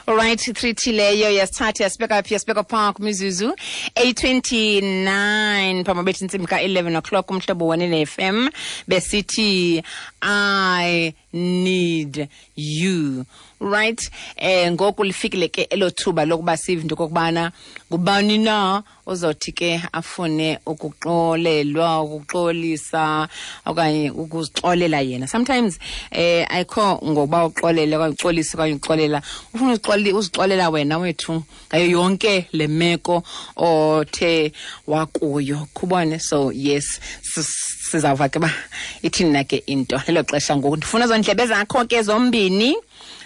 Alright, 3T leyo yasithatha yasibeka phi, yasibeka phaa kwimizuzu 8:29 phambi bethi intsimbi ka-11 o'clock. Umhlobo Wenene FM, besithi "I Need You". Right, ngoku lifikile ke elo thuba lokuba sive into okokubana ngubani na ozothi ke afune ukuxolelwa, ukuxolisa okanye ukuzixolela yena. Sometimes ayikho ngokuba uxolele okanye uxolise okanye uxolela, ufuna uzixolela wena wethu ngayo yonke le meko othe wakuyo, khubone. So yes, sizawuva ke uba ithini na ke into. Lelo xesha ngoku, ndifuna zondlebe zakho ke zombini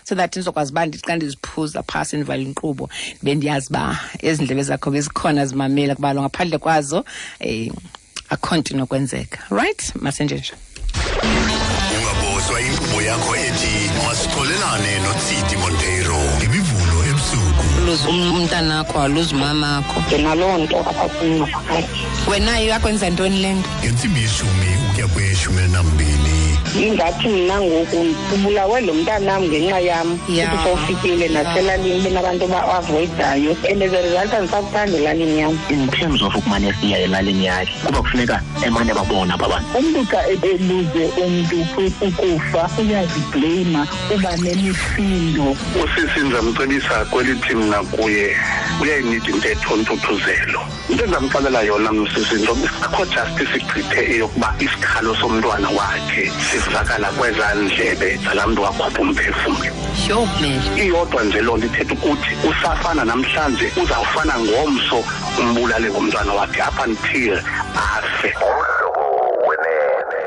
so that ndizokwazi uba ndithi xa ndiziphuza phasi, ndivala inkqubo, bendiyazi uba ezi ndlebe zakho bezikhona zimamela, kuba lo ngaphandle kwazo akho nto inokwenzeka. Right, masenje nje. Ungabozwa inkqubo yakho ethi Masixolelane noTsidi Monteiro ngeMivulo ebusuku. Luze umntanakho, aluze umamakho. Ndinaloo nto apha kum ngaphakathi. Wena yakwenza ntoni le nto? Ngentsimbi yeshumi ukuya kweyeshumi elinambini. Ingathi mna ngoku ubulawe lo mntanam ngenxa yam. Uthi sowufikile naselalini benabantu ba-avoidayo, and as a result andisakuthanda elalini yam. In terms of ukumane siya elalini yakhe, kuba kufuneka emane babona aba bantu. Umntu xa eluze umntu ukufa uyazibleyima, uba nemisindo. Usisi ndizamcebisa kwelithi mna kuye uyayinida intetho ntuthuzelo. Into endizamxelela yona msisi, into akho justice igqithe eyokuba isikhalo somntwana wakhe sivakala kwezaa ndlebe zalaa mntu wakhupha umphefumlo. Sure, man. Iyodwa nje loo nto ithetha ukuthi usafana namhlanje, uzawufana ngomso, umbulale ngomntwana wakhe up until afe. Umhlobo Wenene.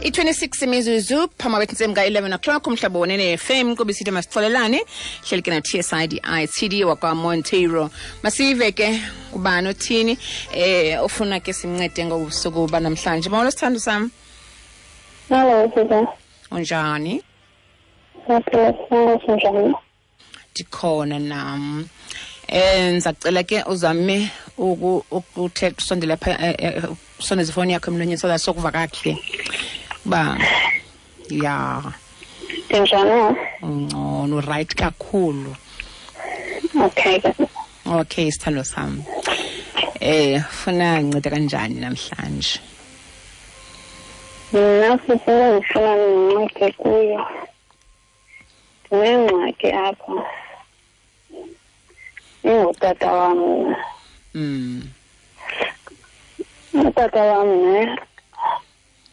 I-26 imizuzu phambi kwethu ka-11 o'clock. Umhlobo Wenene FM, kuba isithi Masixolelane, hleli ke na-TSIDI TD wakwaMonteiro. Masive ke ubani othini ofuna ke simncede ngobusuku banamhlanje. Molo, sithando sam. Hello, sisi. Unjani? Siyaphila, sinjani? Ndikhona nam. Ndizacela ke uzame ukuthetha usondele pha, usondeze ifowuni yakho emlonyeni so that sokuva kakuhle uba ya. Ndinjani? Ungcono, right kakhulu. Okay. Okay, sithando sam, funa nceda kanjani namhlanje? Mna sisi, ndifuna ndincede kuyo. Ndinengxaki apha. Ingutata wam mna. Utata wam ne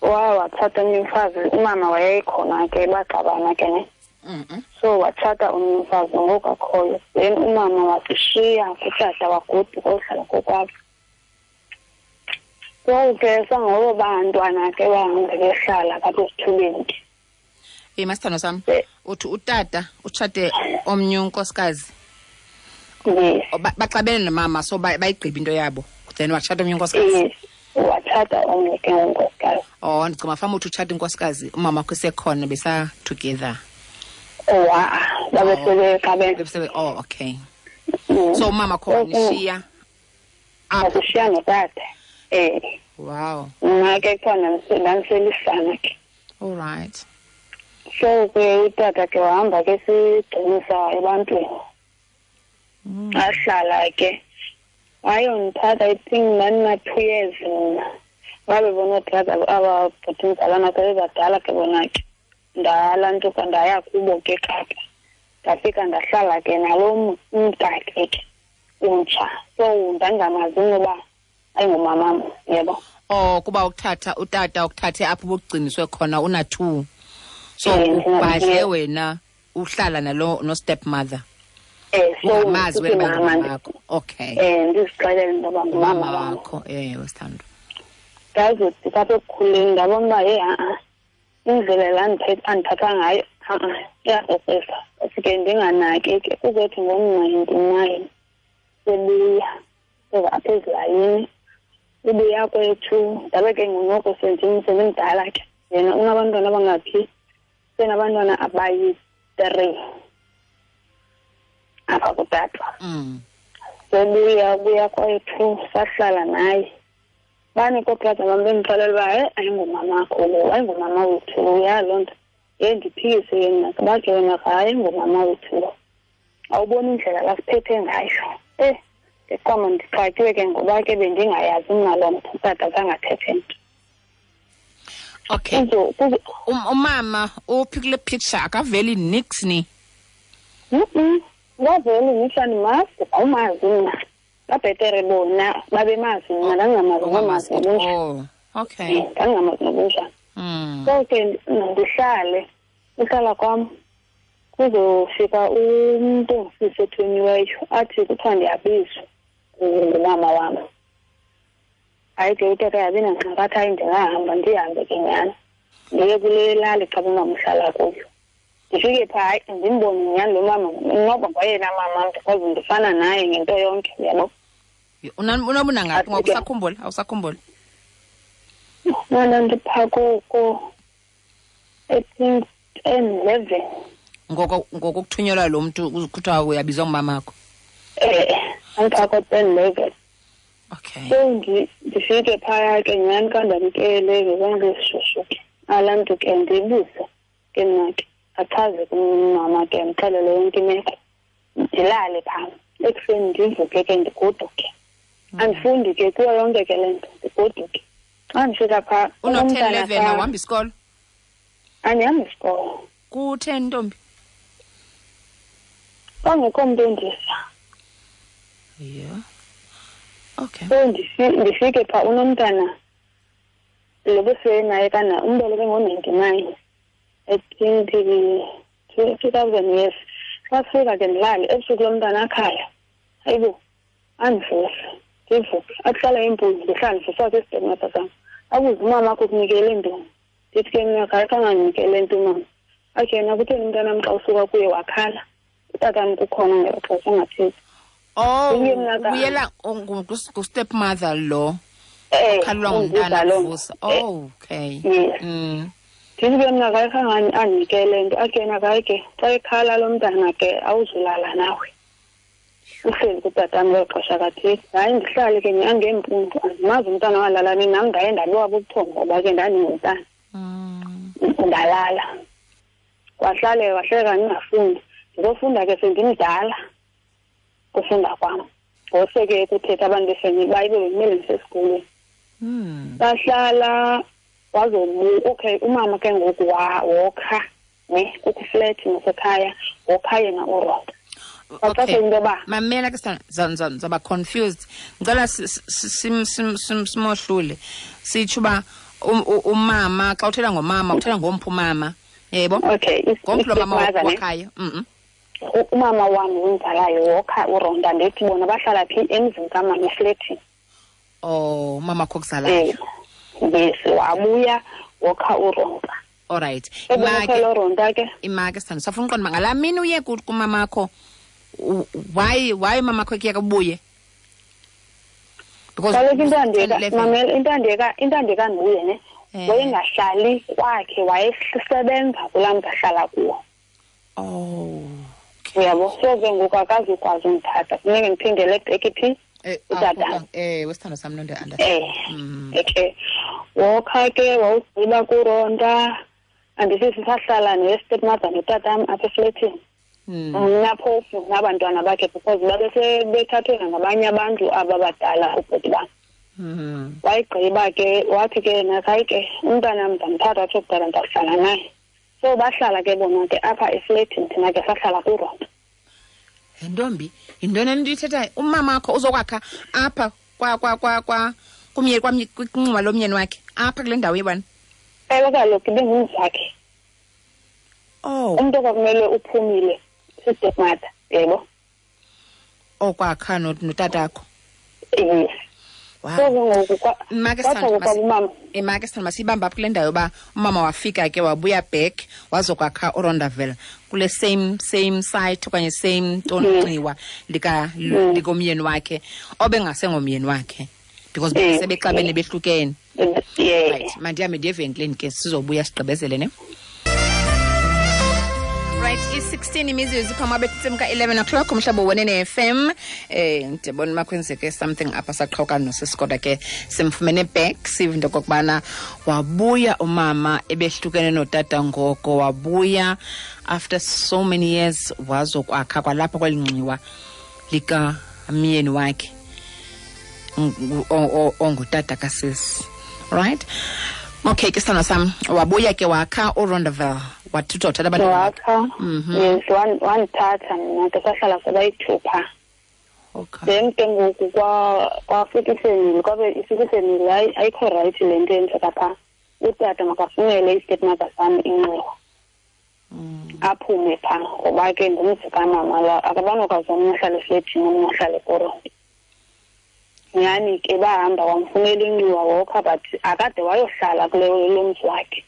watshata omnye umfazi, umama wayekhona ke, baxabana ke ne. So watshata omnye umfazi ngoku akhoyo. Then umama wasishiya kutata, wagoduka ohlala kokwabo. So ke sangobo bantwana ke bahambe behlala apha esithubeni. Masithando sam, uthi utata utshate omnye unkosikazi? Yes. Baxabene nomama, so bayigqiba into yabo, then watshata omnye unkosikazi? Yes, watshata omnye ke unkosikazi. Oh, ndicinga fama uthi utshata inkosikazi umama wakho esekhona, besa together. Wa, babe sebexabene. Oh, okay. So umama kho wanishiya apha? Wasishiya notata. Wow. Mna ke khona ndandiselisana ke. All right. So ke utata ke wahamba ke sigcinisa ebantwini. Ahlala ke. Wayondithatha, I think ndandina-2 years mna. Babe bona ootata aba bhuti mzalwana ke bebadala ke bona ke. Ndalantuka ndaya kubo ke Kapa. Ndafika ndahlala ke nalo mntakhe ke umtsha. So ndandingamazi noba ayingumamam, yebo. Oh, kuba ukuthatha utata ukuthathe apho ubugciniswe khona una 2. So ubhadle wena uhlala nalo no stepmother. So Ungamazi ndithi wena mama ngumama wakho. Okay. Ndizixelele into yoba ngumama Ngumama wam. wakho, wesithando. Ndazothi apha ekukhuleni ndabona uba, hey, ha-a, indlela la andiphatha ngayo Iyakrokrisa. Sike ndinganaki ke, kuzothi ngo-99 sebuya seza apha ezilalini. Ubuya kwethu ndabe ke ngonoko sendimdala ke. Yena unabantwana abangaphi? Senabantwana abayi-3 apha kutata. Sebuya buya kwethu sahlala naye. Bani kobrother bam bendixelela uba hayi ayingomamakho lo, ayingomama wethu lo, ya loo nto. Ye ndiphikise yena, bathi wena hayi ayingomama wethu lo. Awuboni indlela lasiphethe ngayo. Ndiqoma ndixakiwe ke ngoba ke bendingayazi mna loo nto, utata zangathethe nto. Okay. Umama uphi kule picture akaveli nix ni? Akaveli nix, andimazi, awumazi mna. Babhetere bona babemazi mna, ndandingamazi nomazi nobunjani. Oh, okay. Ndandingamazi nobunjani. So ke ndihlale, uhlala kwam kuzofika umntu ongusisi othunyiweyo athi kuthiwa ndiyabizwa ngumama wam. Hayi ke utata yabi nangxaki, athi hayi ndingahamba, ndihambe ke nyhani. Ndiye kule lali xa umama uhlala kuyo. Ndifike phaa, hayi ndimbone nyhani lo mama, noba ngoyena mama because ndifana naye ngento yonke, uyabo. Unobuna ngaphi ngoku? Usakhumbula? Awusakhumbuli? Mna ndiphaa koko, I think 10, 11. Ngoko kuthunyelwa lo mntu kuthiwa uyabizwa ngumamakho? Andiphaa ko 10, 11. Okay. So ndifike phaya ke nyhani xa ndamkele ngezandla ezishushu ke. Alaa mntu ke ndibuze ke mna ke, achaze kumama ke, ndixelele yonke imeko. Ndilale phaa. Ekuseni ndivuke ke ndigoduke. Andifundi ke kuyo yonke ke le nto, ndigoduke. Xa ndifika phaa, Uno-ten umntana 11, phaa awuhambi isikolo? Andihambi isikolo. Kutheni, ntombi? Kwangekho mntu ondisa. Yeah. Okay. So ndifike phaa unomntana lo besenaye kana umbeleke ngo-99. I think 2000 years. Xa sifika ke ndilale, ebusuku lo mntana akhala. Hayibo, andivuse, ndivuke. Akuhlala impunzi, ndihlale ndivuswa sisitemato sam. Abuze umama wakho ukunikele ntoni? Ndithi ke mna hayi khange andinikele nto umama. Athi yena kutheni umntanam xa usuka kuye wakhala? Utatam kukhona ngelo xesha ungathethi. Oh, Uye mna ka- ubuyela ngu-stepmother lo. Ukhalelwa ngumntana unguza lo. kuvusa. Oh, okay. Yes. Ndithi ke mna hayi khange andinikele nto. Athi yena hayi ke, xa ekhala lo mntana ke awuzulala nawe. Uhleli kutatam ngelo xesha kathile. Hayi ndihlale ke nyhani ngeempundu. Andimazi umntana walala nini, nam ndaye ndabiwa bubuthongo ngoba ke ndandingumntana. Ndalala. Kwahlale, kwahleka ndingafundi. Ndizofunda ke sendimdala kufunda kwam. Ngose ke kuthetha abantu befemeli uba ibe bekumele ndisesikolweni. Bahlala, wazobu-, okay, umama ke ngoku wokha, ne, kukho iflethi nasekhaya, wokha yena uRoda. Okay. Baxaxe into yoba Mamela ke sithando, zaba confused. Ngicela simohlule. Sitsho uba umama, xa uthetha ngomama, uthetha ngomphi umama. Yebo? Okay, Ngomphi lo mama i-stepmother, ne? wakhayo? Umama wam umzalayo wokha uRonda, ndithi bona bahlala phi emzini kamama eflethini. Oh, umama wakho okuzalayo. Yes, wabuya wokha uRonda. All right. Ebona phela uRonda ke. Imake sithando, safuna uqonda uba ngalaa mini uye kumamakho, why umamakho ekuyeka ubuye? Because Kaloku into andiyeka, ten eleven. mamela, into andiyeka, into andiyeka ndibuye ne. Wayengahlali kwakhe, wayesebenza kulaa mntu ahlala kuwo. Oh. Uyabo, so ke ngoku akazukwazi undithatha. Funeke ndiphindele ebheki phi? Utata. Wesithando sam lo ndi-understand. Okay. Wokha ke wawugqiba kuRonda. Andisithi sahlala ne-stepmother notatam apha eflethini. Mna phofu nabantwana bakhe because babesebethathwe nangabanye abantu aba badala ubhuti bam. Wayigqiba ke wathi ke yena hayi ke umntana ndamthatha atsho kudala ndawuhlala naye. So bahlala ke bona ke apha eflethini, thina ke sahlala kuRonda. Ntombi, yintoni le nto uyithethayo? Umama wakho uzokwakha apha kwinxuba lomyeni wakhe, apha kule ndawo yebani? Ewe kaloku ibingumzi wakhe. Oh. Umntu okwakumele uphumile si-stepmother, yebo. Okwakha notatakho? Yes. So ke ngoku kwatsho kwabumama. Make sithanda masiyibambe apho kule ndawo yoba umama wafika ke wabuya back wazokwakha uRondaville kule same site okanye same ntonxiwa likomyeni wakhe obengasengomyeni wakhe because sebexabene behlukene. Right, mandihambe ndiye evenkileni ke sizobuya sigqibezele ne. Right, i-16 imizuzu phambi betsimka 11 o'clock umhlobo wenene FM. Ndibona makwenzeke something apha saqhawuka nosisi, kodwa ke simfumene back. Sive into okokubana wabuya umama ebehlukene notata ngoko, wabuya after so many years wazokwakha kwalapha kweli nxiwa likamyeni wakhe ongutata kasisi. Right, okay ke sithando sam, wabuya ke wakha uRondaville, wathutha wathatha abantwana bakhe. Wakha, yes, wandithatha mna ke, sahlala sabayithupha. Then ke ngoku kwafika ifemeli, kwabe ifika ifemeli, hayi, ayikho right le nto yenzeka phaa, utata makafunele i-stepmother sam inxiwa, aphume phaa, ngoba ke ngumzi kamama la, akabanokwazi omnye ahlale efletini, omnye ahlale kuronti. Nyhani ke bahamba wamfunela inxiwa, wokha, but akade wayohlala kule lo mzi wakhe.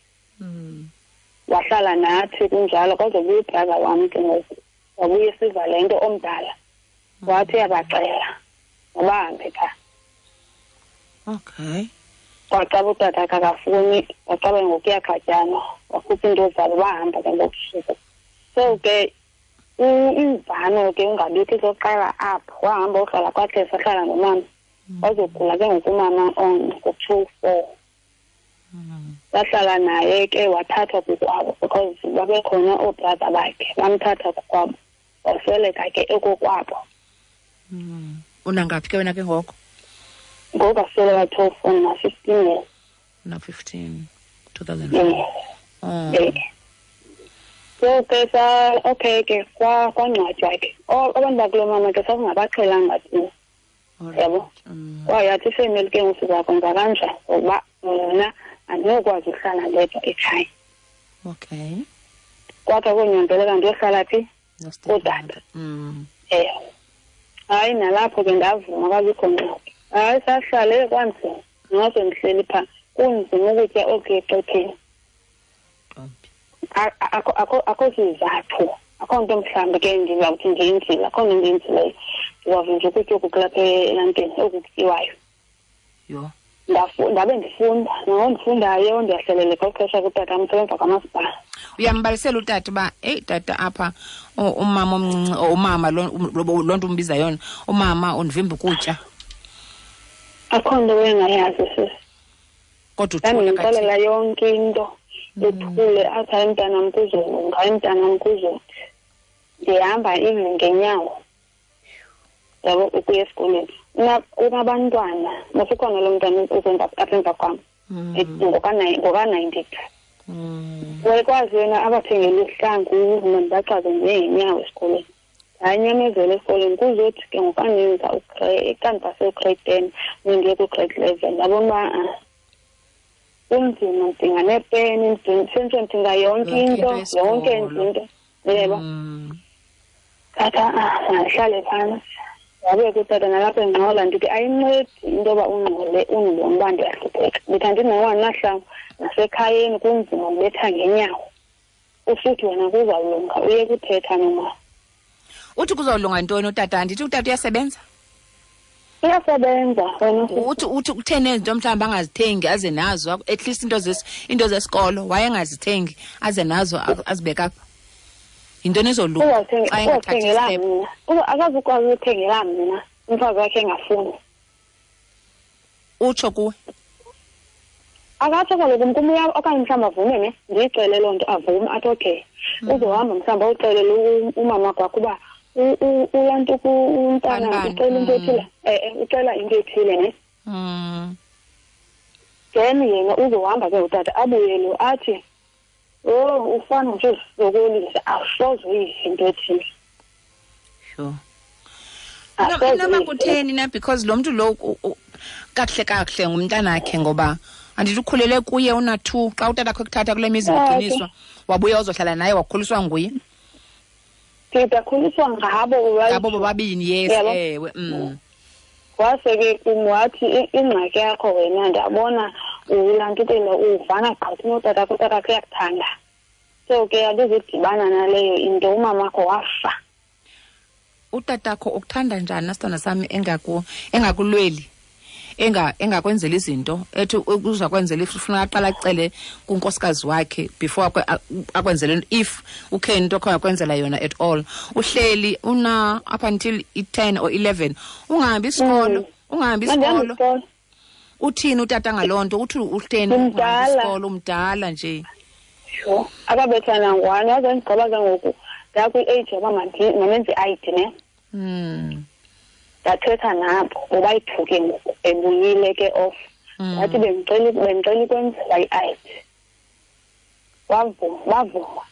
Wahlala nathi kunjalo, kwazobuya ubrother wam ke ngoku, wabuya esiva le nto omdala, wathi uyabacela mabahambe phaa. Kwacaba utata akakafuni, wacaba ngoku kuyaqatyanwa, wakhupha iinto zabo, bahamba ke ngokusuku. So ke imvano ke ungabikho izoqala apho, wahamba wohlala kwakhe, sahlala nomama, wazogula ke ngoku umama on ngo-24. Sahlala naye ke, wathathwa kokwabo because babekhona oobrother bakhe, bamthatha kokwabo, wasweleka ke ekokwabo. Unangaphi ke wena ke ngoko? Ngoku asweleka 12, na-15 years. Una-15, 2004. Oh. So ke sa okay ke kwangcwatywa ke. Abantu bakulo mama ke sasingabaqhelanga thina. Yabo. Kwayathi ifemeli ke ngoku sizakwenza kanjani, ngoba mna andinokwazi ukuhlala ndedwa ekhaya. Kwakhe konyanzeleka ndiyohlala phi? Kutata. Ewe. Hayi, nalapho ke ndavuma, kwabikho ngxaki. Hayi, sahlale kwanzima. Nose ndihleli phaa, kunzima ukutya okuya exhetheni. Akho sizathu, akho nto mhlawumbi ke ndizawuthi ndiyenzile, akho nto ndiyenzileyo. Ndizawuve nje ukutya oku kulapha elantini, oku kutyiwayo. Ndabe ndifunda, nangoku ndifundayo ndiyahleleleka uxesha kutata umsebenza kwamasipala. Uyambalisela utata uba, eyi tata, apha umama omncinci, or umama loo nto umbiza yona, umama undivimba ukutya? Akho nto engayazi sisi. Kodwa uthule? Ndandimxelela yonke into, ethule, athi hayi mntanam kuzolunga, hayi mntanam kuzothi. Ndihamba even ngenyawo, yabo, ukuya esikolweni. Unabantwana, masikhona lo mntana uzenza apha emva kwam, ngoka-92. Wayekwazi yena abathengele ihlangu, mna ndibaxaze ngeenyawo esikolweni. Ndanyamezela esikolweni, kuzothi ke ngoku andenza xa ndipase ugrade 10, mna ndiye ku-grade 11, ndabona uba kunzima, ndidinga neepeni, sentsho ndidinga yonke Yonke into, into yonke yesikolo. into, yebo. Tata, mandihlale phantsi. Wabe kutata nalapha engxola, ndithi ayincedi into yoba ungxole undibone uba ndiyahlupheka. Ndithi andinawo nahlangu, nasekhayeni kunzima, ndibetha ngenyawo. Usithi wena kuzawulunga, uye kuthetha nomama. Uthi kuzawulunga ntoni utata? Andithi utata uyasebenza? Uyasebenza wena sisi. Uthi kutheni ezinto mhlawumbi angazithengi aze nazo, at least into zesikolo wayengazithengi aze nazo, azibeke apha. Yintoni ezolunga xa engathathi Uzothengela step? mna. Akazukwazi ukuthengela mna, umfazi wakhe engafuni. Utsho kuwe? Akatsho kaloku kum, okanye mhlawumbi avume ne, ndiyixele loo nto, avume athi okay. Uzohamba mhlawumbi awuxelele umama kwakho uba ulanto umntana Bani, bani. ucela into ethile. Ucela into ethile ne. Then yena uzohamba ke utata abuyele athi, oh, ufana nje uzisokolisa, awusoze uyive into ethile. Asoze Inoba uyive. kutheni na, because lo mntu lo kakuhle kakuhle ngumntanakhe, ngoba andithi ukhulele kuye una-2 xa utata akho ekuthatha kule mizi ugciniswa, wabuya wazohlala naye, wakhuliswa nguye. Ndidakhuliswa ngabo, right? Ngabo bobabini, yes. Yabo. Ewe. Wase ke kum wathi ingxaki yakho wena ndiyabona ulantukela uvana gqitha notatakho, utatakho uyakuthanda. So ke andizudibana naleyo into, umamakho wafa. Utatakho ukuthanda njani nasithandwa sami engakulweli, engakwenzeli izinto, ethi uza kwenzela if ufuna aqala acele kunkosikazi wakhe before akwenzele, if ukhe into akho akwenzela yona at all. Uhleli una up until i-10 or 11 ungahambi isikolo, ungahambi isikolo. Uthini utata ngaloo nto? Uthi uhleli ungahambi isikolo, umdala nje. Sure. Akabethana ngwane, waze ndigqiba ke ngoku ndakwi-age yoba mandenze i-ID ne. Ndathetha nabo ngoba-yi-two ke ngoku ebuyile ke off. Ndathi bendicela ukwenzela i-ID. Wavuma.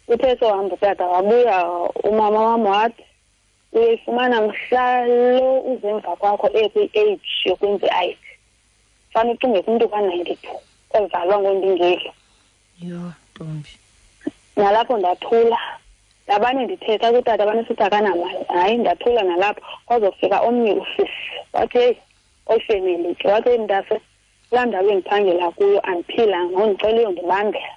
Uthe sohamba utata wabuya umama wam wathi uyayifumana mhla lo uze emva kwakho ekwi-age yokwenza i-ID. Fane ucinge kumntu ka-92 ozalwa ngondingeli. Yho, ntombi. Nalapho ndathula. Ndabane ndithetha kutata, abane sithi akanamali. Hayi, ndathula nalapho. Kwazofika omnye usisi wathi heyi, oyifemeli ke. Wathi heyi mntase, kulaa ndawo endiphangela kuyo andiphilanga, ngondicela uyondibambela.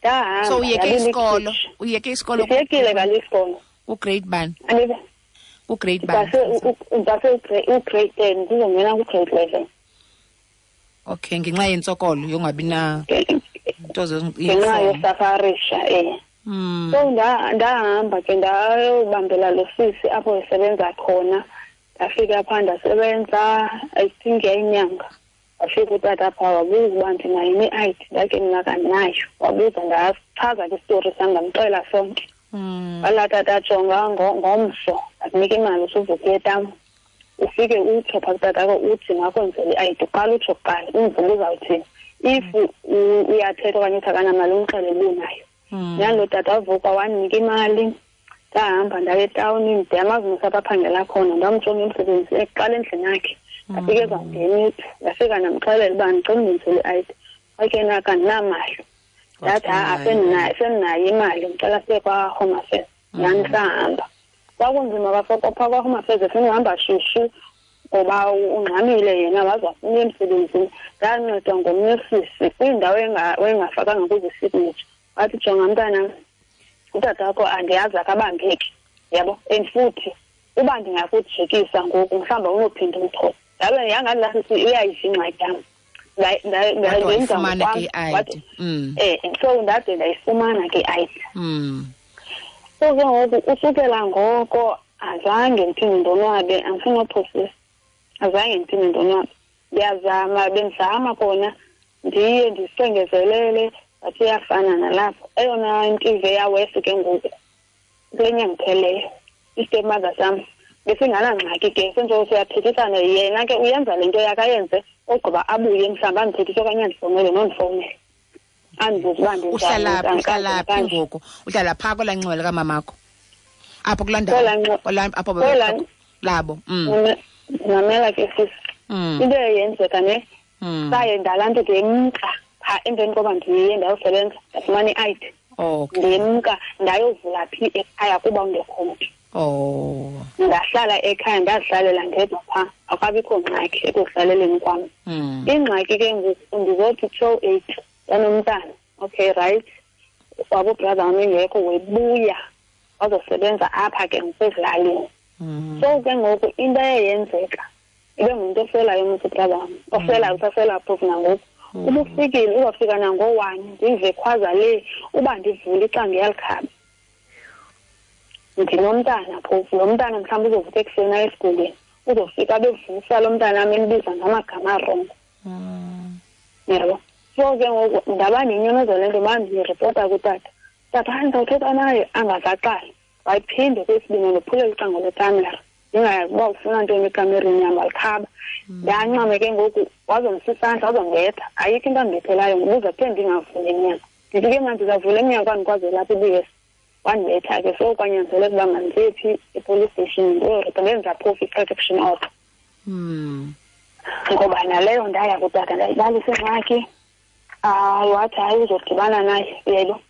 Ndahamba, So uyeke ndabila isikolo? ikhitshi. Uyeke isikolo? Ndiyekile kaloku isikolo. Ugrade bani? Andibe. Ugrade bani? Ndase ugrade 10, ndizongena kugrade 11. Okay, ngenxa yentsokolo yongabi na nto Ngenxa yosafarisha, eh. So ndahamba ke ndayobambela lo sisi apho esebenza khona. Ndafika phaa ndasebenza, I think yayinyanga. Wafika utata phaa wabuza uba ndinayo ne-I D, ndake mna kandinayo. Wabuza, ndachaza ke isitori sam, ndamxelela sonke. Walaa tata jonga ngomso, ndakunika imali usuvuka uye etam. Ufike utsho phaa kutatakho uthi makwenzele i-I D, uqala utsho kuqala, umve uba uzawuthini. If uyathetha okanye uthi akanamali, umxelele uba unayo. Nalo tata wavuka wandinika imali, ndahamba ndaya etawuni, ndiyamazi mos apho aphangela khona, ndamjonga emsebenzini ekuqala endlini yakhe. Ndafika ezawungena iphi, ndafika ndamxelela uba ndicela undenzele i-I D. Wathi yena akandinamali. Ndathi ha-a, sendinayo imali, ndicela siye kwaHome Affairs. Nyhani sahamba. Kwakunzima phaa kwaHome Affairs, efuna uhamba shushu ngoba ungxamile yena, waze wafuna uya emsebenzini. Ndancedwa ngomnye usisi kwindawo engafakanga kuzo isignature. Wathi jonga mntanam, utata wakho andiyazi akabambeki, yabo, and futhi uba ndingakujikisa ngoku mhlawumbi awunophinda umthole. Ndabe yangathi laa sisi uyayiva ingxaki yam. Wathi Ndenza wayifumana ngokwam. ke i-I D. Wathi, so ndade ndayifumana ke i-I D. So ke ngoku usukela ngoko azange ndiphinde ndonwabe, andifuni uphosisa. Azange ndiphinde ndonwabe. Ndiyazama, bendizama kona ndiye ndisengezelele, but iyafana nalapho. Eyona nto yawesi ke ngoku kule nyanga ipheleyo, i-stepmother sam besinganangxaki ke, senjoko siyathethisana. Yena ke uyenza le nto yakhe ayenze, ogqiba abuye mhlawumbi andithethise okanye andifowunele nondifowunele. Andibuze uba ndinjani, Uhlala phi, ndinjani, uhlala phi kanje. ngoku? Uhlala phaa kwelaa nxiwa likamamakho? Apho kulaa ndawo, Kwelaa nxiwa. kwelaa, apho Kwelaa bebekho labo. Mamela ke sisi. Into eyenzeka ne, saye ndalaa nto ndemka phaa emveni koba ndiye ndayosebenza, ndafumana i-I D. Ndemka ndayovula phi ekhaya kuba ungekho mntu. Ndahlala ekhaya, ndazihlalela ndedwa phaa, akukabikho ngxaki ekuhlaleleni kwam. Ingxaki ke ngoku ndizothi 2:08 yanomntana. Okay, right. Wabo brother wam engekho, webuya wazosebenza apha ke ngoku ezilalini. So ke ngoku into eyenzeka, ibe ngumntu oselayo mos ubrother wam, oselayo, usasela phofu nangoku. Ubufikile, uzawufika nango-1, ndive khwaza le, uba ndivule icango iyalikhaba. Ndinomntana phofu, lo mntana mhlawumbi uzovuka ekuseni aye esikolweni, uzofika abevusa lo mntana am embiza ngamagama arongo. Yabo. So ke ngoku ndaba nenyamezelo le nto, uba ndiripota kutata. Tata, hayi, ndizawuthetha naye, angazaqali. Wayiphinde kwesibini, ndophulela ucango lwekamera. Ndingayazi uba ufuna ntoni ekamereni yam, walikhaba. Ndancame ke ngoku, wazomsa isandla, wazondibetha. Ayikho into andibethelayo, ndibuza kuthe ndingavuli emnyango. Ndithi ke mna ndizavula emnyango andikwazi ulapha ibuyisa. Wandibetha ke, so kwanyanzeleka uba mandiye phi e-police station, ndiyoripota, ndenza phofu i-protection order. Ngoba naleyo ndaya kutata, ndayibalisa ingxaki. Wathi hayi uzodibana naye, uyayibona?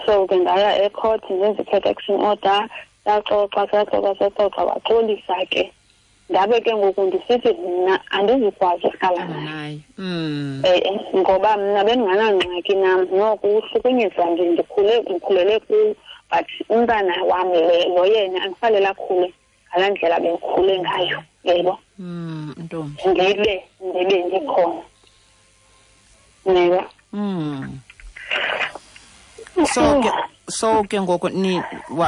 So ke ndaya ecourt, ndenza i-protection order. Saxoxa, saxoxa, saxoxa, waxolisa ke. Ndabe ke ngoku ndisithi mna andizukwazi uhlala naye. Ngoba mna bendinganangxaki nam, noko uhlukunyezwa ndikhulele kuyo, but umntana wam lo yena andifanele akhule ngalaa ndlela bendikhule ngayo, yebo. Ntombi. Ndibe ndikhona. Yebo. So ke ngoku ni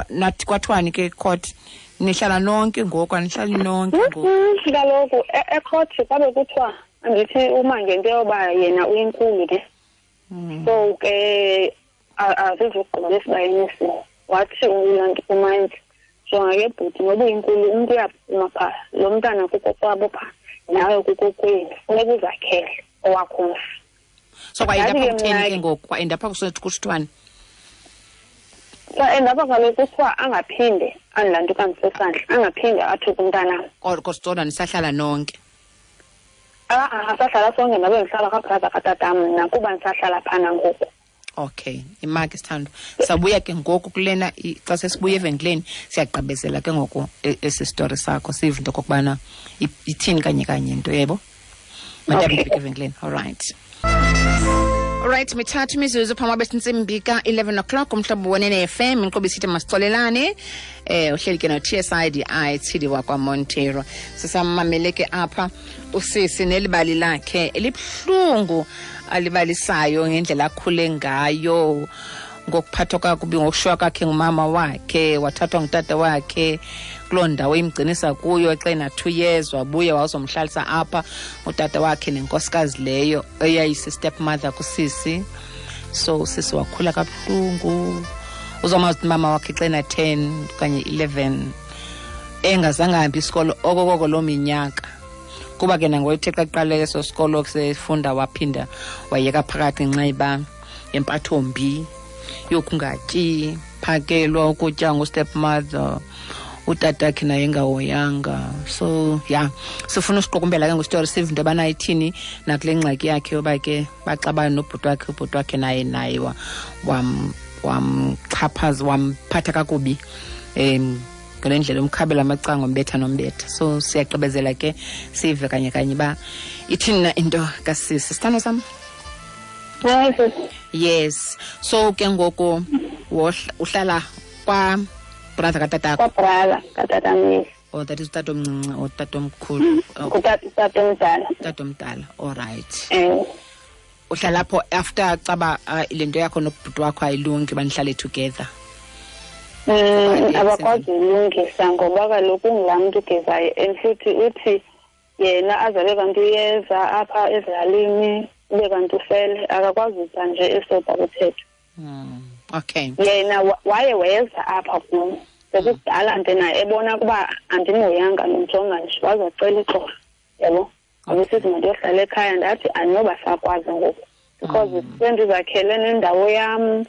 nathi kwathiwani ke court, nihlala nonke ngoku, anihlali nonke ngoku? Kaloku ecourt kwabe kuthiwa andithi uma ngento yoba yena uyinkulu ke. So ke azizugqiba esibayeni esinye. Wathi ulanto kumantyi, jonga ke bhuti, ngoba uyinkulu umntu uyaphuma phaa, lo mntana kukokwabo phaa, nawe kukokwenu, funeka uzakhele owakho umzi. So kwaendapha kutheni ke ngoku? Kwaendapha kusithwani? Kwaendapha kaloku kuthiwa angaphinde andilanto kandisesandla, angaphinde athuke umntanam. Kodwa nisahlala nonke? Asahlala sonke, ndabe ndihlala kwabrother katatam mna kuba ndisahlala phana ngoku. Okay, imaki sithando. Sabuya ke ngoku kulena, xa sesibuya evenkileni siyagqibezela ke ngoku esi story sakho, sive into okokubana ithini kanye kanye into, yebo? Mandihambe ndifike evenkileni. All right. Alright, mithathu imizuzu phambi kwabe sintsimbi ka-11 o'clock, umhlobo wenene FM, inkqubo isithi masixolelane. Uhleli ke no-TSIDI Tshidi wakwaMonteiro. Sisamamele ke apha usisi nelibali lakhe elibuhlungu alibalisayo ngendlela akhule ngayo, ngokuphathwa kakubi, ngokushiywa kwakhe ngumama wakhe, wathathwa ngutata wakhe kuloo ndawo imgcinisa kuyo xa ena-2 years, wabuya wazomhlalisa apha utata wakhe nenkosikazi leyo eyayisi-stepmother kusisi. So usisi wakhula kabuhlungu, uzomazi umama wakhe xa ena-10 okanye 11, engazange ahambe isikolo okokoko loo minyaka, kuba ke nangoyithe xa kuqale eso sikolo sefunda waphinda wayeka phakathi ngenxa yoba yempathombi yokungatyi, phakelwa ukutya ngustepmother, utatakhe naye engahoyanga. So yeah, sifuna usiqukumbela ke ngositori, sive into yobana ithini nakule ngxaki yakhe yoba ke baxabana nobhuti wakhe, ubhuti wakhe naye wamxhaphaza, wamphatha kakubi, ngale ndlela umkhabela amacango, umbetha nombetha. So siyagqibezela ke sive kanye kanye uba ithini na into kasisi. Sithando sam? Yes. So ke ngoku uhlala kwa brother katatakho? Kwa brother katatam, yes. Oh, that is utatomncinci or utatomkhulu? Utatomdala. Utatomdala, all right. Uhlala apho after caba le nto yakho nobhuti wakho ayilungi, banihlale together? Abakwazi ulungisa ngoba kaloku ungulaa mntu ugezayo, and futhi uthi yena azabe kanti uyeza apha ezilalini, ube kanti ufele, akakwazi uza nje esoba kuthetha. Okay. Yena waye weza apha kum sekukudala nje naye ebona ukuba andimoyanga, ndimjonga nje, wazacela uxolo, yabo. Abesithi mandiyohlala ekhaya, ndathi andinoba sakwazi ngoku because sendizakhele nendawo yam,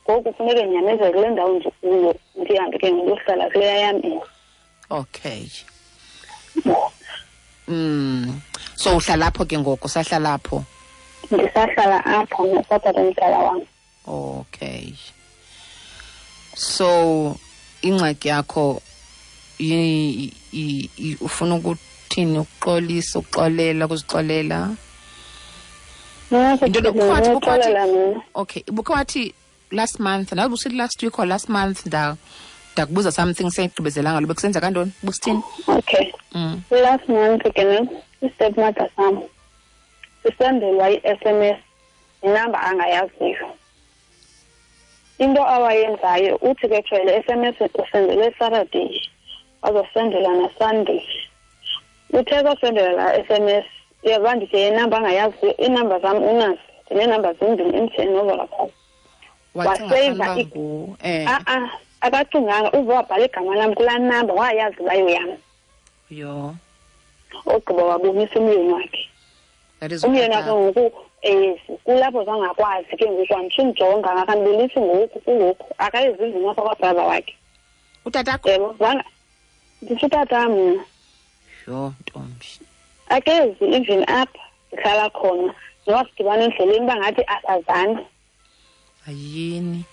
ngoku funeke ndinyamezele kule ndawo ndikuyo, ndihambe ke ndiyohlala kuleya yam indlu. Okay. So uhlala apho ke ngoku, usahlala apho? Ndisahlala apho nosatata omdala wam. Okay. So ingxaki yakho ufuna ukuthini? Ukuxolisa, ukuxolela, ukuzixolela? Into okay, ubukhe wathi last month, nawe ubusithi last week or last month, ndakubuza something seyigqibezelanga lo, bekusenza kantoni? Busithini? Okay. Last month ke ne, i-stepmother sam sisendelwa i-SMS inamba angayaziyo. Into awayenzayo uthi ke jwayele SMS usendele Saturday, wazosendela na Sunday. Uthe kasendela la SMS, uyabona ndithi inamba angayaziyo, inamba zam unazo, ndineenamba zimbini, MTN noVodacom. Waseva akacinganga, uve wabhala igama lam kulaa namba, wayazi uba yam. Yho. Ogqiba wabonisa umyeni wakhe. Umyeni wakhe ngoku kulapho zangakwazi ke ngoku, andisumjonga, akandibulisi ngoku, kungoku akayizizi apha kwabrother wakhe. Utatakho? Yebo, nditsho utatam mna. Yho, ntombi. Akezi even apha ndihlala khona, noba sidibana endleleni uba ngathi asazani. Ayini.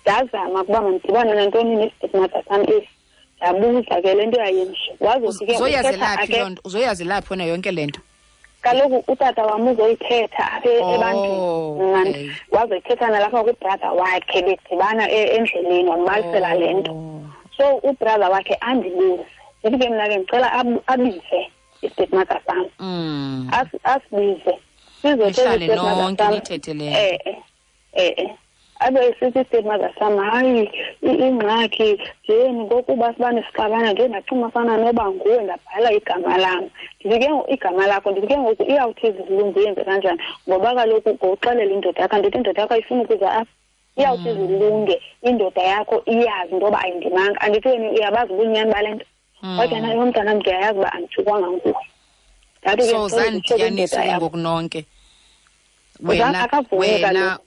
Ndazama ukuba mandidibane nantoni ne-stepmother sam esi, ndabuza ke le nto yayemsho. Wazothi ke Uzoyazelaphi loo nto? Uzoyazelaphi wena yonke le nto? Kaloku utata wam uzoyithetha apha ebantwini. Wazoyithetha nalapha kubrother wakhe, bedibana endleleni, wambalisela le nto. So ubrother wakhe andibuze, ndithi ke mna ke ndicela abize i-stepmother sam. Asibize sizohlale nonke nithethe le. Abe esithi i-stepmother sam, hayi ingxaki njeni ngokuba sibane sixabana nje, ndacima fana noba nguwe, ndabhala igama lam. Ndithi ke igama lakho, ndithi ke ngoku iyawuthi izilungu yenze kanjani, ngoba kaloku ngoxelela indoda yakho, andithi indoda yakho ayifuni ukuza apha. Iyawuthi izilunge indoda yakho iyazi into yoba ayindimanga, andithi wena uyabazi ubunyani bale nto. Wathi naye umntana ndiyayazi uba andithukwanga nguwe. So zandidibanisa ke ngoku nonke. Wena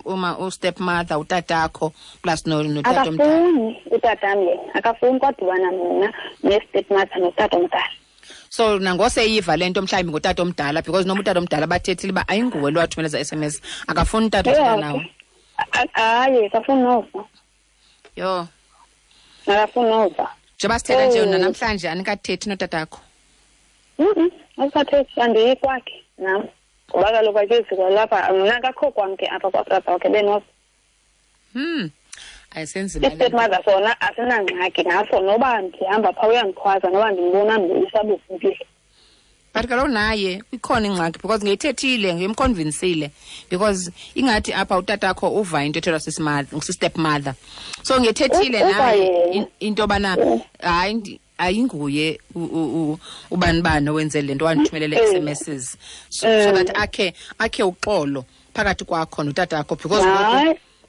uma u-stepmother utatakho plus notata omdala. Akafuni utatam yena, akafuni kwadibana mna ne-stepmother notata omdala. So nangoseyiva le nto mhlawumbi ngotata omdala, because noma utata omdala bathethile uba ayinguwe lo wathumela eza SMS, akafuni utata othetha nawe. Hayi, akafuni nova. Yho. Akafuni nova. Njengoba sithetha nje namhlanje anikathethi notatakho? Asikathethi, andiyi kwakhe nam. Ngoba kaloku akezi kwalapha, mna akakho kwam ke apha kwabrother wakhe benoza. Ayisenzima le. I-stepmother sona asinangxaki naso, noba ndihamba phaa uyandikhwaza, noba ndimbona ndibuyisa. But kaloku naye ikhona ingxaki, because ngeyithethile, ngiyemconvincile, because ingathi apha utatakho uva into ethethwa si-stepmother. So ngethethile naye into yobana hayi ayinguye ubani bani owenze le nto, wandithumelele SMSs, so that akhe uxolo phakathi kwakho notatakho, because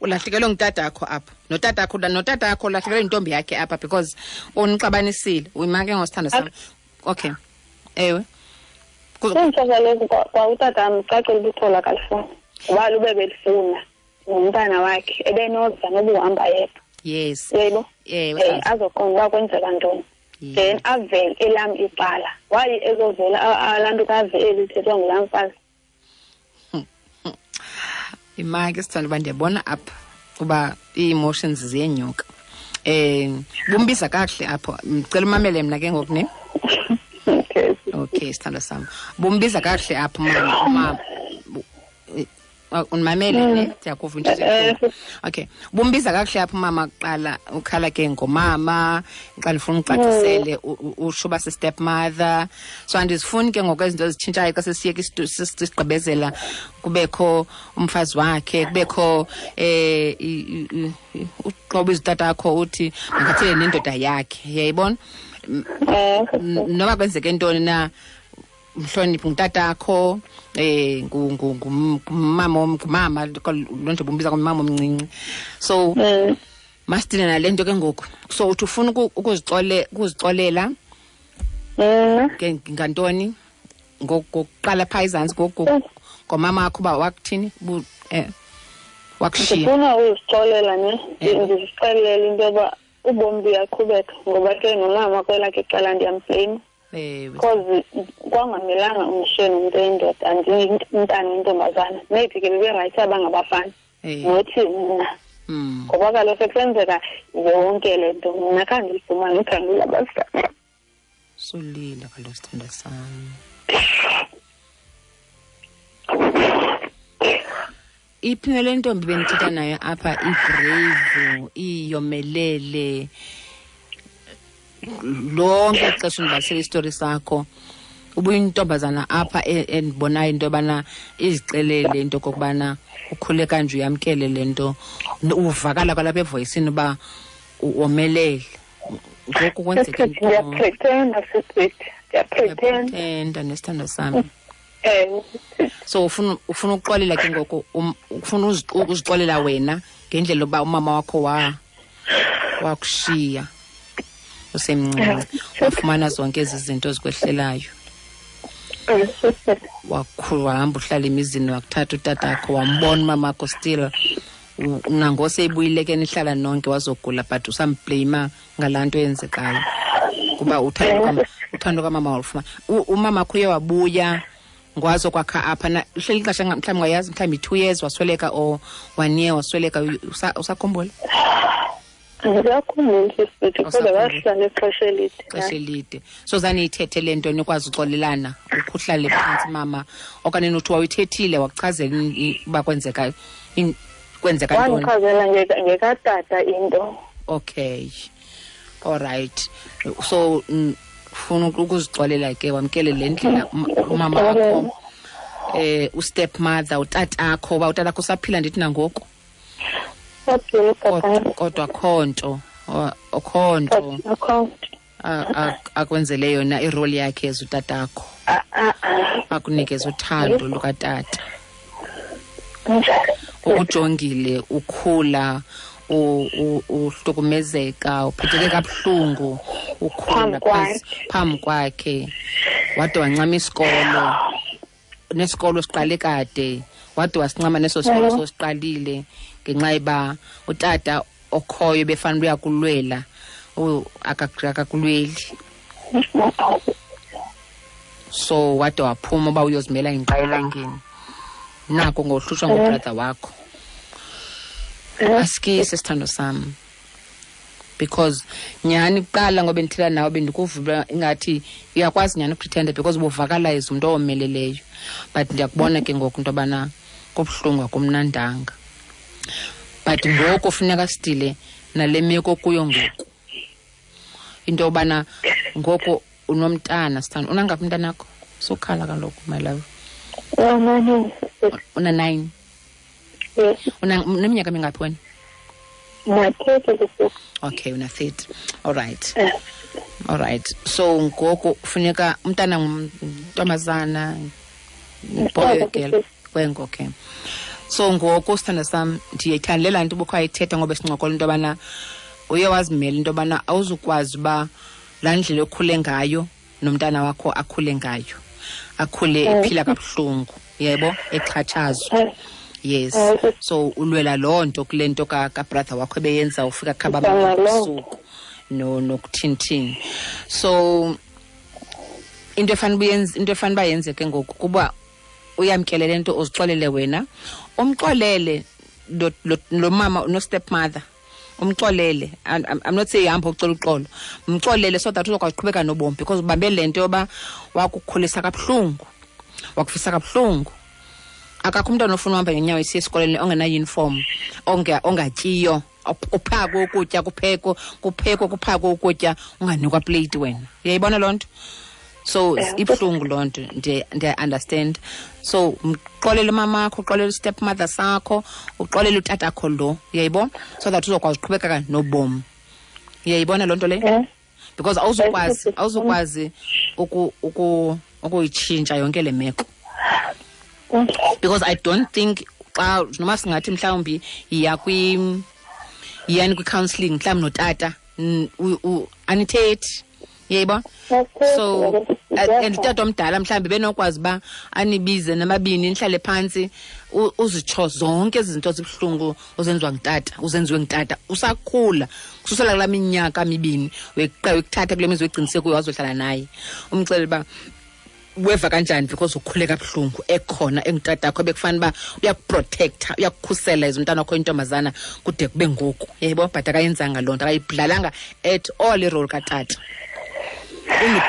ulahlekelwe ngutatakho apha, notatakho ulahlekelwe yintombi yakhe apha, because unixabanisile. Uyima ke ngosithando sam. Okay. Ewe. Kuntsho kaloku kwa utatam cacile ubuthola akalifuni, ngoba lube belifuna ngumntana wakhe ebenoza noba uhamba yedwa. Yes. Yebo. Ewe. Azoqonda uba kwenzeka ntoni. Then avele elam icala. Why ezovela laa nto kave eli ithethwa ngulaa mfazi? Imaki sithanda uba ndiyabona apha uba ii-emotions ziyenyuka. Bumbiza kakuhle apho. Ndicela umamele mna ke ngoku ne. Okay. Okay, sithando sam. Bumbiza kakuhle apho mama. Unimamele ne? Ndiyakuva into ezibuhlungu. Okay. Bumbiza kakuhle apho mama kuqala, ukhala ke ngomama, xa ndifuna ucacisele usho uba si-stepmother. So andizifuni ke ngoku izinto ezitshintshayo xa sesiyeka sigqibezela, kubekho umfazi wakhe, kubekho uxoba izitatakho uthi makathele nendoda yakhe. Uyayibona? Noba kwenzeke ntoni na, mhloniphi ngutatakho, ngumama, lo nto bombiza ngumama omncinci. So masithile nale nto ke ngoku. So uthi ufuna ukuzixolela ke ngantoni? Ngokuqala phaa ezantsi ngomama wakho uba wakuthini? Wakushiya. Ndifuna uzixolela ne, ndizixelele into yoba ubomi buyaqhubeka, ngoba ke nomama kwelakhe icala ndiyamblame. Because kwangamelanga umshiye nomntu oyindoda, andimntana oyintombazana. Maybe ke beberayithi abangabafana, nothi mna. Ngoba kaloku sekusenzeka yonke le nto, mna khange ndilifumane uthando lwabazali. Solile kaloku sithandwa sam. Iphi le ntombi bendithetha nayo apha, ibrave, iyomelele, lonke ixesha undibalisela isitori sakho, ubuyintombazana apha endibonayo into yobana izixelele into okokubana ukhule kanje, uyamkele le nto, uvakala kwalapha evoyisini uba womelele. Ngoku kwenzeka ntoni? Ndiyapretenda, sisithi. Ndiyapretenda. Ndiyapretenda nesithandwa sami. So ufuna ukuxolela ke ngoku, ufuna ukuzixolela wena ngendlela yokuba umama wakho wakushiya usemncinci, wafumana zonke ezi zinto ezikwehlelayo. Wakhula, wahamba uhlala emizini, wakuthatha utatakho, wambona umamakho still. Nangose ibuyile ke nihlala nonke, wazogula, but usamblame ngalaa nto eyenzekayo. Kuba uthando kamama walufumana. Umama wakho uye wabuya, Ngwazo kwakha apha na uhleli ixesha mhlawumbi ungayazi, mhlawumbi 2 years wasweleka or 1 year wasweleka, usakhumbula? Ndiyakhumbula sisithi, kodwa wahlala ixesha elide. Ixesha elide. So zaniyithethe le nto nikwazi uxolelana, uhlale phantsi mama, okanye nothi wawuyithethile wakuchazela uba kwenzeka ntoni? Wandichazela ngekatata into. Okay. All right. So ufuna ukuzixolela ke, wamkele le ndlela umama wakho, ustep mother, utatakho, uba utatakho usaphila ndithi nangoku. Kodwa khonto, okhonto akwenzele yona irole yakhe as utatakho. Akunikeze uthando lukatata. Ukujongile ukhula, uhlukumezeka, uphetheke kabuhlungu, ukhula phambi kwakhe. Wade wancama isikolo, nesikolo siqale kade, wade wasincama neso sikolo sosiqalile ngenxa yoba utata okhoyo befanele uyakulwela, akakulweli. So wade waphuma uba uyozimela ingqa elangeni. Nako ngohlushwa ngubrother wakho. Asikise sithando sam. Because nyhani kuqala ngoba bendithela nawe bendikuva ingathi uyakwazi nyhani ukupretenda because ubuvakala as umntu owomeleleyo. But ndiyakubona ke ngoku into yobana kubuhlungu akumnandanga. But ngoku funeka sidile nale meko kuyo ngoku. Into yobana ngoku unomntana sithando. Unangaphi umntanakho? Sukhala kaloku my love. Una 9. Yes. Uneminyaka mingaphi wena? Una 30. Okay, una 30. All right. All right. So ngoku funeka umntana ngumntombazana, boy girl, kwengo, okay. So ngoku sithando sam ndiyayithanda le nto ubukho ayithetha ngoba sincokola into yobana uye wazimela into yobana awuzukwazi uba laa ndlela okhule ngayo nomntana wakho akhule ngayo, akhule ephila kabuhlungu, yebo, exhatshazwa. Yes. So ulwela loo nto kule nto ka brother wakho ebeyenza ufika khaba ebusuku nokuthintini. So into efanele uyenze, into efanele uba yenzeke ngoku kuba uyamkele le nto, uzixolele wena, umxolele lo mama no stepmother, umxolele. I'm not saying hamba ucela uxolo, mxolele so that uzokwazi uqhubeka nobomi, because ubambe le nto yoba wakukhulisa kabuhlungu, wakufisa kabuhlungu. Akakho umntwana ofuna uhamba ngenyawo esiya esikolweni ongena-uniform, ongatyiyo, uphakwe ukutya, kuphekwe, kuphakwe ukutya, unganikwa plate wena. Uyayibona loo nto? So ibuhlungu loo nto, ndiya-understand. So mxolele umamakho, uxolele stepmother sakho, uxolele utatakho lo, uyayibona? So that uzokwazi uqhubekeka nobomi. Uyayibona loo nto leyo? Because awuzukwazi ukuyitshintsha yonke le meko. Because I don't think xa noma singathi mhlawumbi yiya yiyani kwi-counselling mhlawumbi notata, anithethi, uyayibona? So and utata omdala mhlawumbi benokwazi uba anibize namabini nihlale phantsi, uzitsho zonke ezi zinto zibuhlungu ozenziwa ngutata, uzenziwe ngutata usakhula kususela kulaa minyaka mibini wekuthatha kule mizi wegcinise kuyo wazohlala naye, umxelele uba weva kanjani because ukhule kabuhlungu ekhona engutatakho ebekufanele uba uyakuprotecta, uyakukhusela as umntana wakho intombazana kude kube ngoku, uyayibona? But akayenzanga loo nto, akayidlalanga at all irole katata.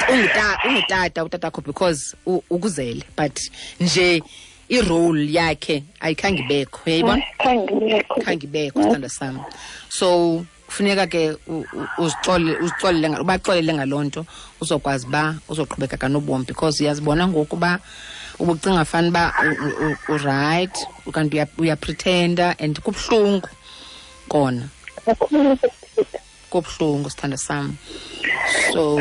Ungutata utatakho because ukuzele, but nje irole yakhe ayikhange ibekho, uyayibona? Khange ibekho, sithandwa sam. So funeka ke uzixolele ubaxolele ngaloo nto, uzokwazi uba uzoqhubeka kanobomi, because uyazibona ngoku uba ubucinga fana uba uright, kanti uyapretenda and kubuhlungu kona. Kubuhlungu sithandwa sam. So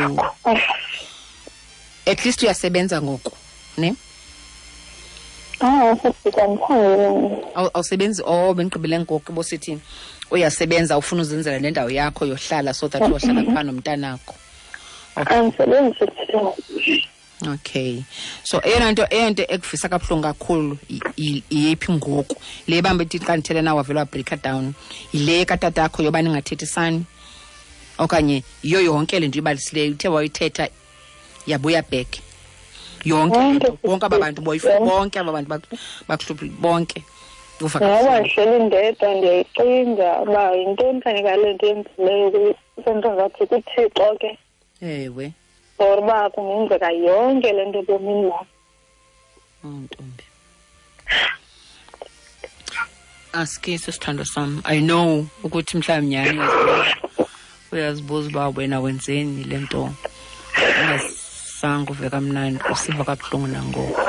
at least uyasebenza ngoku, ne? Awusebenzi? Oh, bendigqibile ngoku bosithi uyasebenza, ufuna uzenzela le ndawo yakho yohlala so that uyohlala phaa nomntanakho. Andisebenzi. Okay. So eyona nto ekuvisa kabuhlungu kakhulu iyephi ngoku? Le bamba ithi xa ndithetha nawe wavele wabreaka down. Yile katatakho yoba ningathethisani? Okanye yiyo yonke le nto ibalisileyo uthe wayithetha yabuya back? Yonke bonke aba bantu boyifu, bonke aba bantu bakuhluphi bonke. Uva Ngoba ndihleli ndedwa ndiyayicinga uba yintoni kanye ngale nto yenzileyo, sento ngathi kuThixo ke. Ewe. For uba kungenzeka yonke le nto ebomini bam. Ntombi. Aske sisithando sam. I know ukuthi mhlawumbi nyhani uyazibuza uba wena wenzeni le nto. Ungazange uve kamnandi, usiva kabuhlungu nangoku.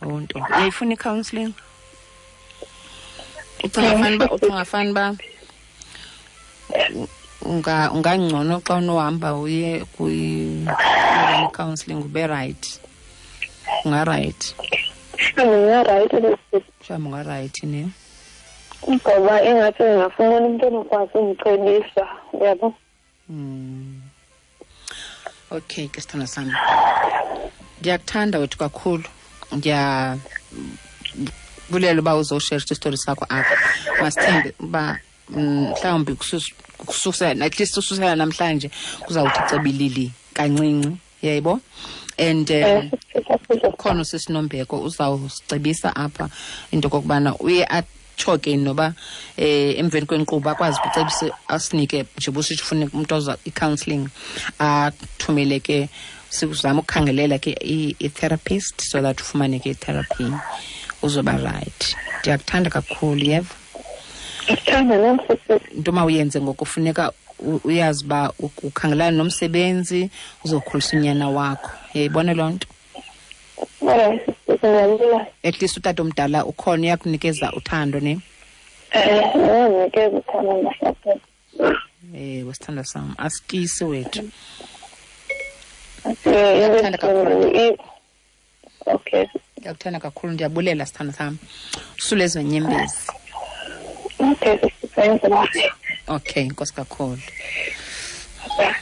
Oh ntombi, uyayifuna i-counselling? Ucinga fani ba ungangcono xa unohamba uye kwi-counselling ube right. Unga-right. Unga-right. Mhlawumbi unga-right ne? Ngoba ingathi ndingafumana umntu onokwazi undicebisa, uyabo? Okay ke sithando sami. Ndiyakuthanda wethu kakhulu. Ndiyabulela uba uzosherisha isitori sakho apha. Masithembe uba mhlawumbi kususela, at least ususela namhlanje kuzawuthi cebilili kancinci, yayibo? And ukhona usisinombeko uzawusicebisa apha into okokubana uye atsho ke noba emveni kwenkqubo akwazi ukucebisa asinike nje busitsho ufuna umntu oza i-counselling athumele ke sikuzama ukukhangelela ke i-therapist so that ufumane ke i-therapy uzoba right. Ndiyakuthanda kakhulu, yeva? Into mawuyenze ngoku funeka uyazi uba ukhangelana nomsebenzi uzokhulisa unyana wakho. Uyayibona loo nto? At least utata omdala ukhona uyakunikeza uthando ne? Uyanikeza uthando nasupport. Sithando sam, asikisi wethu. Ndiyakuthanda kakhulu. Okay. Ndiyakuthanda kakhulu, ndiyabulela sithando sam. Usule ezo nyembezi. Okay, thank you. Okay, nkosi kakhulu. Bye.